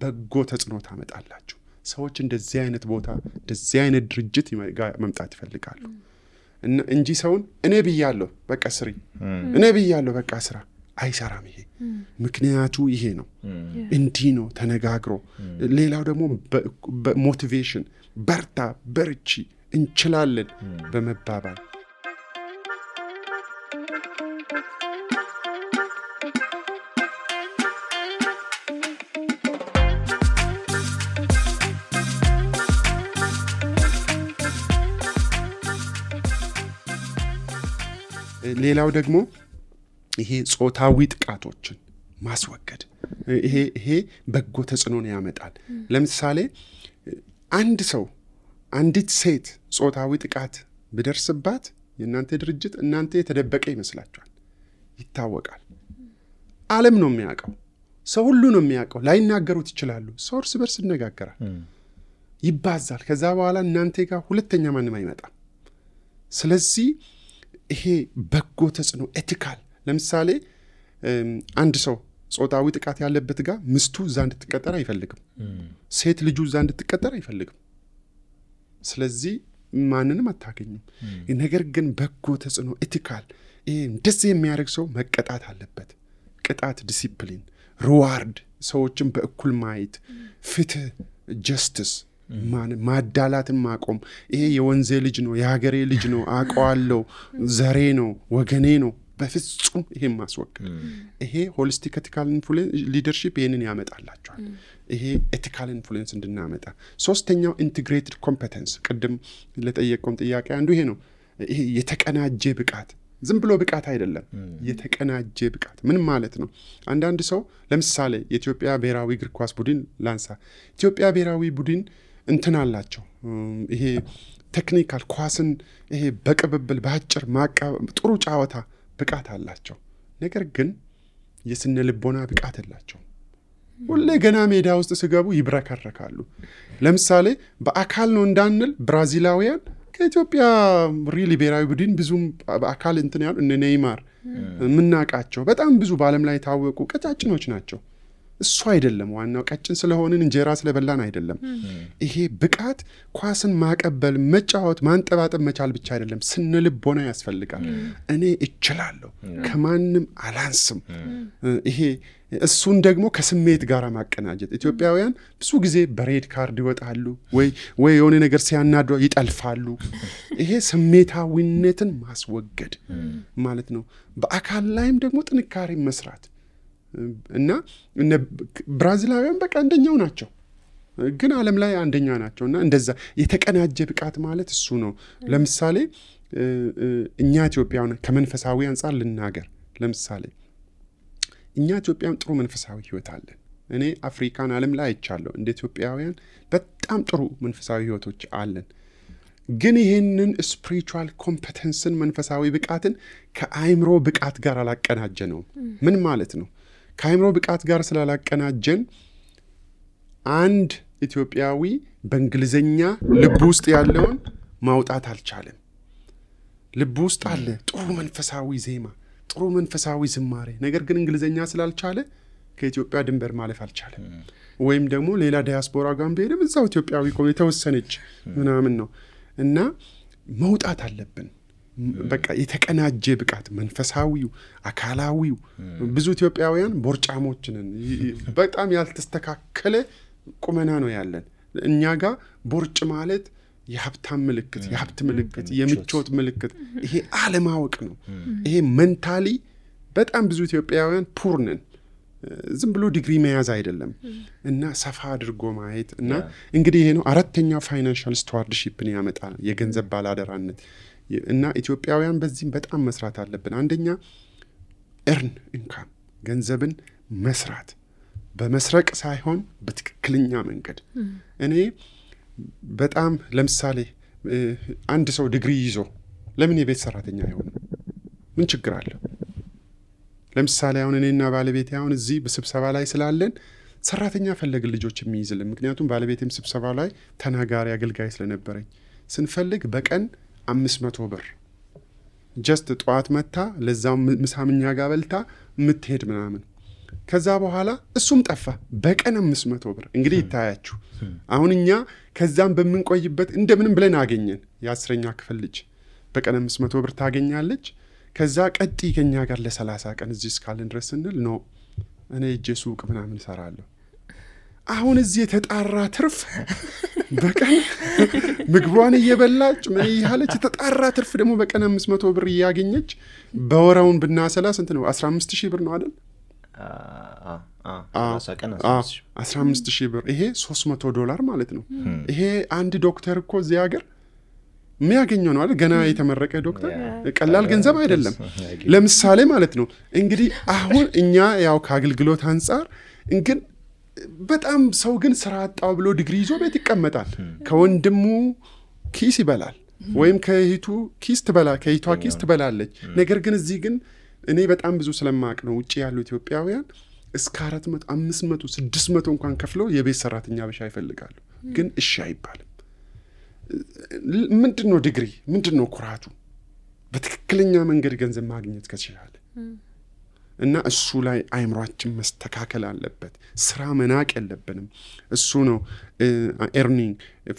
በጎ ተጽዕኖ ታመጣላችሁ። ሰዎች እንደዚህ አይነት ቦታ እንደዚህ አይነት ድርጅት መምጣት ይፈልጋሉ እንጂ ሰውን እኔ ብያለሁ በቃ ስሪ፣ እኔ ብያለሁ በቃ ስራ አይሰራም። ይሄ ምክንያቱ ይሄ ነው፣ እንዲህ ነው ተነጋግሮ። ሌላው ደግሞ ሞቲቬሽን፣ በርታ፣ በርቺ፣ እንችላለን በመባባል ሌላው ደግሞ ይሄ ጾታዊ ጥቃቶችን ማስወገድ ይሄ በጎ ተጽዕኖን ያመጣል። ለምሳሌ አንድ ሰው አንዲት ሴት ጾታዊ ጥቃት ቢደርስባት የእናንተ ድርጅት እናንተ የተደበቀ ይመስላችኋል። ይታወቃል። ዓለም ነው የሚያውቀው፣ ሰው ሁሉ ነው የሚያውቀው። ላይናገሩት ይችላሉ። ሰው እርስ በርስ ይነጋገራል፣ ይባዛል። ከዛ በኋላ እናንተ ጋር ሁለተኛ ማንም አይመጣም። ስለዚህ ይሄ በጎ ተጽዕኖ ኤቲካል። ለምሳሌ አንድ ሰው ጾታዊ ጥቃት ያለበት ጋር ሚስቱ እዛ እንድትቀጠር አይፈልግም፣ ሴት ልጁ እዛ እንድትቀጠር አይፈልግም። ስለዚህ ማንንም አታገኙም። ነገር ግን በጎ ተጽዕኖ ኤቲካል፣ ይሄ እንደዚህ የሚያደርግ ሰው መቀጣት አለበት። ቅጣት፣ ዲሲፕሊን፣ ሪዋርድ፣ ሰዎችን በእኩል ማየት፣ ፍትህ፣ ጀስቲስ፣ ማዳላትን ማቆም። ይሄ የወንዜ ልጅ ነው፣ የሀገሬ ልጅ ነው፣ አውቀዋለሁ፣ ዘሬ ነው፣ ወገኔ ነው፣ በፍጹም ይሄን ማስወገድ። ይሄ ሆሊስቲክ ኤቲካል ኢንፍሉዌንስ ሊደርሺፕ ይሄንን ያመጣላቸዋል። ይሄ ኤቲካል ኢንፍሉዌንስ እንድናመጣ። ሶስተኛው ኢንቲግሬትድ ኮምፒተንስ፣ ቅድም ለጠየቀውም ጥያቄ አንዱ ይሄ ነው። ይሄ የተቀናጀ ብቃት፣ ዝም ብሎ ብቃት አይደለም፣ የተቀናጀ ብቃት። ምን ማለት ነው? አንዳንድ ሰው ለምሳሌ የኢትዮጵያ ብሔራዊ እግር ኳስ ቡድን ላንሳ። ኢትዮጵያ ብሔራዊ ቡድን እንትን አላቸው፣ ይሄ ቴክኒካል ኳስን ይሄ በቅብብል በአጭር ጥሩ ጨዋታ ብቃት አላቸው። ነገር ግን የስነ ልቦና ብቃት የላቸው። ሁሌ ገና ሜዳ ውስጥ ሲገቡ ይብረከረካሉ። ለምሳሌ በአካል ነው እንዳንል ብራዚላውያን ከኢትዮጵያ ሪሊ ብሔራዊ ቡድን ብዙም በአካል እንትን ያሉ እነ ኔይማር የምናውቃቸው በጣም ብዙ በዓለም ላይ የታወቁ ቀጫጭኖች ናቸው። እሱ አይደለም ዋናው። ቀጭን ስለሆንን እንጀራ ስለበላን አይደለም። ይሄ ብቃት ኳስን ማቀበል፣ መጫወት፣ ማንጠባጠብ መቻል ብቻ አይደለም፣ ስነ ልቦና ያስፈልጋል። እኔ እችላለሁ፣ ከማንም አላንስም። ይሄ እሱን ደግሞ ከስሜት ጋር ማቀናጀት። ኢትዮጵያውያን ብዙ ጊዜ በሬድ ካርድ ይወጣሉ ወይ የሆነ ነገር ሲያናዱ ይጠልፋሉ። ይሄ ስሜታዊነትን ማስወገድ ማለት ነው። በአካል ላይም ደግሞ ጥንካሬ መስራት እና ብራዚላውያን በቃ አንደኛው ናቸው፣ ግን ዓለም ላይ አንደኛ ናቸው። እና እንደዛ የተቀናጀ ብቃት ማለት እሱ ነው። ለምሳሌ እኛ ኢትዮጵያውያን ከመንፈሳዊ አንጻር ልናገር። ለምሳሌ እኛ ኢትዮጵያውያን ጥሩ መንፈሳዊ ህይወት አለን። እኔ አፍሪካን ዓለም ላይ አይቻለሁ። እንደ ኢትዮጵያውያን በጣም ጥሩ መንፈሳዊ ህይወቶች አለን። ግን ይህንን ስፒሪቹዋል ኮምፒተንስን መንፈሳዊ ብቃትን ከአይምሮ ብቃት ጋር አላቀናጀ ነው። ምን ማለት ነው? ከአይምሮ ብቃት ጋር ስላላቀናጀን አንድ ኢትዮጵያዊ በእንግሊዘኛ ልብ ውስጥ ያለውን ማውጣት አልቻለም። ልብ ውስጥ አለ ጥሩ መንፈሳዊ ዜማ፣ ጥሩ መንፈሳዊ ዝማሬ፣ ነገር ግን እንግሊዘኛ ስላልቻለ ከኢትዮጵያ ድንበር ማለፍ አልቻለም። ወይም ደግሞ ሌላ ዲያስፖራ ጋር ቢሄድም እዛው ኢትዮጵያዊ የተወሰነች ምናምን ነው። እና መውጣት አለብን። በቃ የተቀናጀ ብቃት መንፈሳዊው አካላዊው ብዙ ኢትዮጵያውያን ቦርጫሞች ነን በጣም ያልተስተካከለ ቁመና ነው ያለን እኛ ጋር ቦርጭ ማለት የሀብታም ምልክት የሀብት ምልክት የምቾት ምልክት ይሄ አለማወቅ ነው ይሄ ሜንታሊ በጣም ብዙ ኢትዮጵያውያን ፑር ነን ዝም ብሎ ዲግሪ መያዝ አይደለም እና ሰፋ አድርጎ ማየት እና እንግዲህ ይሄ ነው አራተኛው ፋይናንሻል ስቱዋርድሺፕን ያመጣል የገንዘብ ባላደራነት እና ኢትዮጵያውያን በዚህም በጣም መስራት አለብን አንደኛ earn income ገንዘብን መስራት በመስረቅ ሳይሆን በትክክለኛ መንገድ እኔ በጣም ለምሳሌ አንድ ሰው ዲግሪ ይዞ ለምን የቤት ሰራተኛ አይሆንም ምን ችግር አለ ለምሳሌ አሁን እኔና ባለቤቴ አሁን እዚህ በስብሰባ ላይ ስላለን ሰራተኛ ፈለግን ልጆች የሚይዝልን ምክንያቱም ባለቤቴም ስብሰባ ላይ ተናጋሪ አገልጋይ ስለነበረኝ ስንፈልግ በቀን 500 ብር ጀስት ጧት መታ ለዛው ምሳምኛ ጋር በልታ ምትሄድ ምናምን ከዛ በኋላ እሱም ጠፋ በቀን 500 ብር እንግዲህ ይታያችሁ አሁን እኛ ከዛም በመንቆይበት እንደምንም ብለን አገኘን የ10ኛ ክፍል ልጅ በቀን 500 ብር ታገኛለች ከዛ ቀጥ ከኛ ጋር ለ30 ቀን እዚህ እስካለን ድረስ እንል ነው እኔ እጄ ሱቅ ምናምን ሰራለሁ አሁን እዚህ የተጣራ ትርፍ በቀን ምግቧን እየበላች ምን ይያለች የተጣራ ትርፍ ደግሞ በቀን 500 ብር ያገኘች በወራውን ብናሰላ ስንት ነው 15000 ብር ነው አይደል 15000 ብር ይሄ $300 ማለት ነው ይሄ አንድ ዶክተር እኮ እዚህ ሀገር የሚያገኘው ነው አይደል ገና የተመረቀ ዶክተር ቀላል ገንዘብ አይደለም ለምሳሌ ማለት ነው እንግዲህ አሁን እኛ ያው ከአገልግሎት አንፃር ግን በጣም ሰው ግን ስራ አጣው ብሎ ዲግሪ ይዞ ቤት ይቀመጣል ከወንድሙ ኪስ ይበላል ወይም ከሂቱ ኪስ ትበላለች ነገር ግን እዚህ ግን እኔ በጣም ብዙ ስለማቅ ነው ውጪ ያሉ ኢትዮጵያውያን እስከ 400 500 600 እንኳን ከፍለው የቤት ሰራተኛ ብቻ ይፈልጋሉ ግን እሺ አይባልም ምንድነው ዲግሪ ምንድነው ኩራቱ በትክክለኛ መንገድ ገንዘብ ማግኘት ከቻለ እና እሱ ላይ አይምሯችን መስተካከል አለበት ስራ መናቅ የለብንም እሱ ነው earning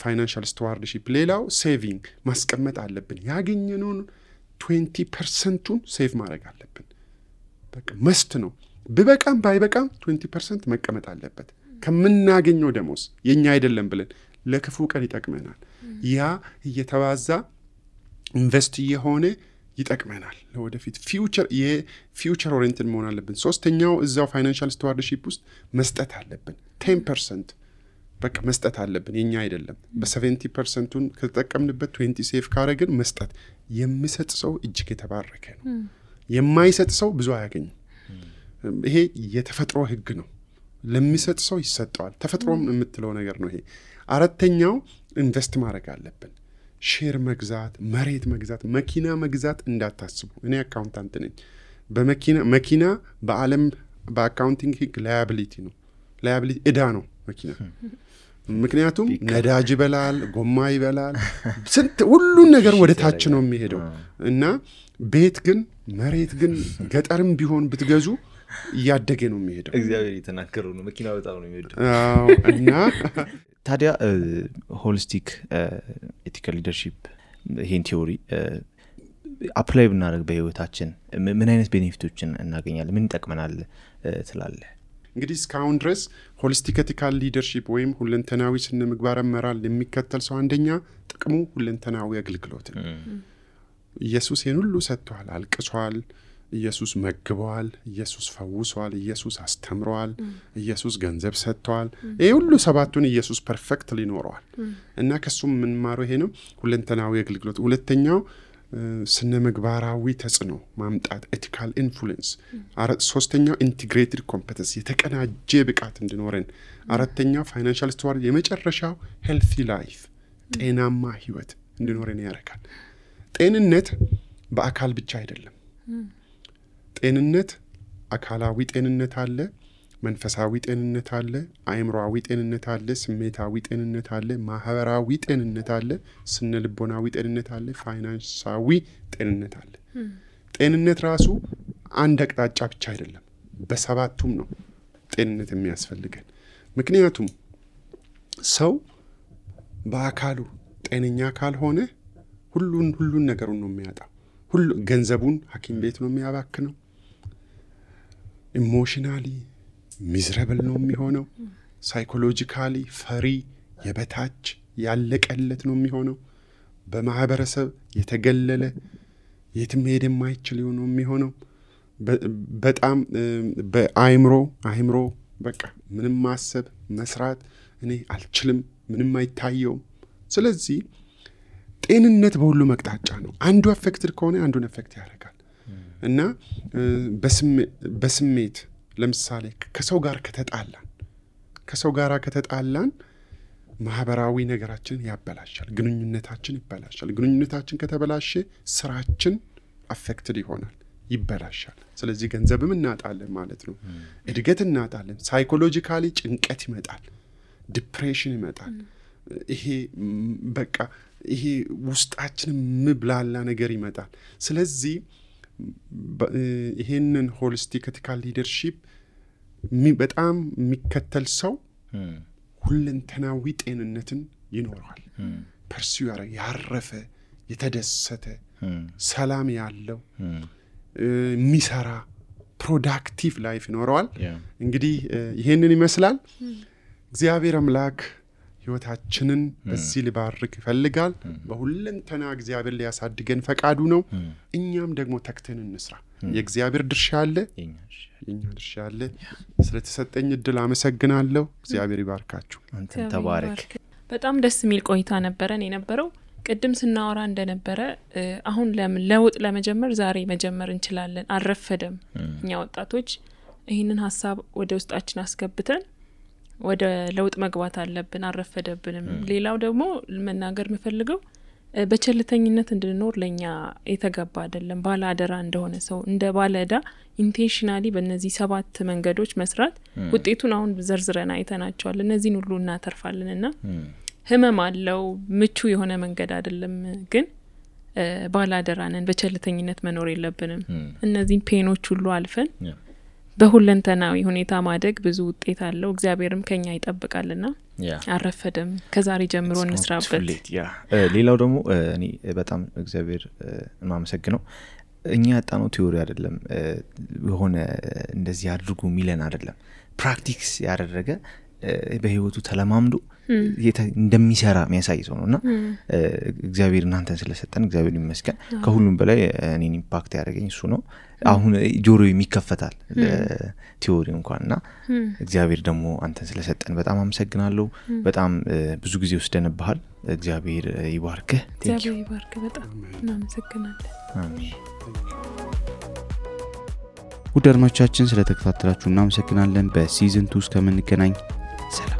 financial stewardship ሌላው saving ማስቀመጥ አለብን ያገኘነውን 20%ን ሴቭ ማድረግ አለብን በቃ መስት ነው በበቃም ባይበቃም 20% መቀመጥ አለበት ከምናገኘው ደሞዝ የኛ አይደለም ብለን ለክፉ ቀን ይጠቅመናል ያ እየተባዛ ኢንቨስት የሆነ ይጠቅመናል ለወደፊት ፊውቸር ኦሪየንትድ መሆን አለብን ሶስተኛው እዛው ፋይናንሻል ስቱዋርድሺፕ ውስጥ መስጠት አለብን 10% በቃ መስጠት አለብን የኛ አይደለም በ70%ን ከተጠቀምንበት 20 ሴፍ ካረግን መስጠት የሚሰጥ ሰው እጅግ የተባረከ ነው የማይሰጥ ሰው ብዙ አያገኝም ይሄ የተፈጥሮ ህግ ነው ለሚሰጥ ሰው ይሰጣል ተፈጥሮም የምትለው ነገር ነው ይሄ አራተኛው ኢንቨስት ማድረግ አለብን ሼር መግዛት መሬት መግዛት መኪና መግዛት እንዳታስቡ እኔ አካውንታንት ነኝ መኪና በአለም በአካውንቲንግ ህግ ላያቢሊቲ ነው ላያቢሊቲ እዳ ነው መኪና ምክንያቱም ነዳጅ ይበላል ጎማ ይበላል ስንት ሁሉ ነገር ወደ ታች ነው የሚሄደው እና ቤት ግን መሬት ግን ገጠርም ቢሆን ብትገዙ ያደገ ነው የሚሄደው እግዚአብሔር የተናገረው ነው መኪና በጣም ነው የሚወደው እና ታዲያ ሆሊስቲክ ኤቲካል ሊደርሺፕ ይሄን ቲዮሪ አፕላይ ብናደርግ በህይወታችን ምን አይነት ቤኔፊቶችን እናገኛለን ምን ይጠቅመናል ትላለህ እንግዲህ እስካሁን ድረስ ሆሊስቲክ ኤቲካል ሊደርሺፕ ወይም ሁለንተናዊ ስነ ምግባር አመራር የሚከተል ሰው አንደኛ ጥቅሙ ሁለንተናዊ አገልግሎት ነው ኢየሱስ ይሄን ሁሉ ሰጥቷል አልቅሷል ኢየሱስ መግቧል ኢየሱስ ፈውሷል ኢየሱስ አስተምሯል ኢየሱስ ገንዘብ ሰጥቷል ይሄ ሁሉ ሰባቱን ኢየሱስ ፐርፌክትሊ ኖሯል እና ከሱም ምን ማሮ ይሄ ነው ሁለንተናዊ አገልግሎት ሁለተኛው ስነ ምግባራዊ ተጽዕኖ ማምጣት ኤቲካል ኢንፍሉዌንስ ሶስተኛው ኢንቲግሬትድ ኮምፒተንስ የተቀናጀ ብቃት እንዲኖረን አራተኛው ፋይናንሻል ስቱዋርድ የመጨረሻው ሄልቲ ላይፍ ጤናማ ህይወት እንዲኖረን ያደርጋል ጤንነት በአካል ብቻ አይደለም ጤንነት አካላዊ ጤንነት አለ መንፈሳዊ ጤንነት አለ አእምሮአዊ ጤንነት አለ ስሜታዊ ጤንነት አለ ማህበራዊ ጤንነት አለ ስነ ልቦናዊ ጤንነት አለ ፋይናንሳዊ ጤንነት አለ ጤንነት ራሱ አንድ አቅጣጫ ብቻ አይደለም በሰባቱም ነው ጤንነት የሚያስፈልገን ምክንያቱም ሰው በአካሉ ጤነኛ ካልሆነ ሁሉን ነገሩን ነው የሚያጣው ሁሉ ገንዘቡን ሐኪም ቤት ነው የሚያባክነው። ኢሞሽናሊ ሚዝረብል ነው የሚሆነው። ሳይኮሎጂካሊ ፈሪ፣ የበታች ያለቀለት ነው የሚሆነው። በማህበረሰብ የተገለለ የትም ሄድ የማይችል ነው የሚሆነው። በጣም በአይምሮ በቃ ምንም ማሰብ መስራት እኔ አልችልም፣ ምንም አይታየውም። ስለዚህ ጤንነት በሁሉ መቅጣጫ ነው። አንዱ አፌክትድ ከሆነ አንዱን አፌክት ያደርጋል። እና በስሜት ለምሳሌ ከሰው ጋር ከተጣላን ማህበራዊ ነገራችንን ያበላሻል፣ ግንኙነታችን ይበላሻል። ግንኙነታችን ከተበላሸ ስራችን አፌክትድ ይሆናል፣ ይበላሻል። ስለዚህ ገንዘብም እናጣለን ማለት ነው። እድገት እናጣለን። ሳይኮሎጂካሊ ጭንቀት ይመጣል፣ ዲፕሬሽን ይመጣል። ይሄ በቃ ይሄ ውስጣችን ምብላላ ነገር ይመጣል። ስለዚህ ይሄንን ሆሊስቲክ ኤቲካል ሊደርሺፕ በጣም የሚከተል ሰው ሁለንተናዊ ጤንነትን ይኖረዋል። ፐርሲው ያረፈ፣ የተደሰተ፣ ሰላም ያለው፣ የሚሰራ ፕሮዳክቲቭ ላይፍ ይኖረዋል። እንግዲህ ይሄንን ይመስላል። እግዚአብሔር አምላክ ህይወታችንን በዚህ ሊባርክ ይፈልጋል። በሁለንተና እግዚአብሔር ሊያሳድገን ፈቃዱ ነው። እኛም ደግሞ ተክተን እንስራ። የእግዚአብሔር ድርሻ አለ፣ የኛ ድርሻ አለ። ስለተሰጠኝ እድል አመሰግናለሁ። እግዚአብሔር ይባርካችሁ። አንተም ተባረክ። በጣም ደስ የሚል ቆይታ ነበረን የነበረው። ቅድም ስናወራ እንደነበረ አሁን ለውጥ ለመጀመር ዛሬ መጀመር እንችላለን። አልረፈደም። እኛ ወጣቶች ይህንን ሀሳብ ወደ ውስጣችን አስገብተን ወደ ለውጥ መግባት አለብን። አልረፈደብንም። ሌላው ደግሞ መናገር የምፈልገው በቸልተኝነት እንድንኖር ለኛ የተገባ አይደለም። ባለ አደራ እንደሆነ ሰው እንደ ባለ ዕዳ ኢንቴንሽናሊ በእነዚህ 7 መንገዶች መስራት ውጤቱን አሁን ዘርዝረን አይተናቸዋል። እነዚህን ሁሉ እናተርፋለንና ህመም አለው፣ ምቹ የሆነ መንገድ አይደለም። ግን ባለ አደራ ነን። በቸልተኝነት መኖር የለብንም። እነዚህን ፔኖች ሁሉ አልፈን በሁለንተናዊ ሁኔታ ማደግ ብዙ ውጤት አለው። እግዚአብሔርም ከኛ ይጠብቃልና አረፈደም። ከዛሬ ጀምሮ እንስራበት። ሌላው ደግሞ እኔ በጣም እግዚአብሔር ማመሰግነው እኛ ያጣነው ቲዮሪ አይደለም፣ የሆነ እንደዚህ አድርጉ ሚለን አይደለም። ፕራክቲክስ ያደረገ በህይወቱ ተለማምዶ እንደሚሰራ የሚያሳይ ሰው ነውና እግዚአብሔር እናንተን ስለሰጠን እግዚአብሔር ይመስገን። ከሁሉም በላይ እኔን ኢምፓክት ያደረገኝ እሱ ነው። አሁን ጆሮ የሚከፈታል ቲዮሪ እንኳንና እግዚአብሔር ደግሞ አንተን ስለሰጠን በጣም አመሰግናለሁ። በጣም ብዙ ጊዜ ወስደንብሃል። እግዚአብሔር ይባርክህ። እግዚአብሔር ይባርክ። በጣም እናመሰግናለን። አሜን። ውድ አድማጮቻችን ስለተከታተላችሁ እናመሰግናለን። በሲዝን 2 እስከምንገናኝ ሰላም።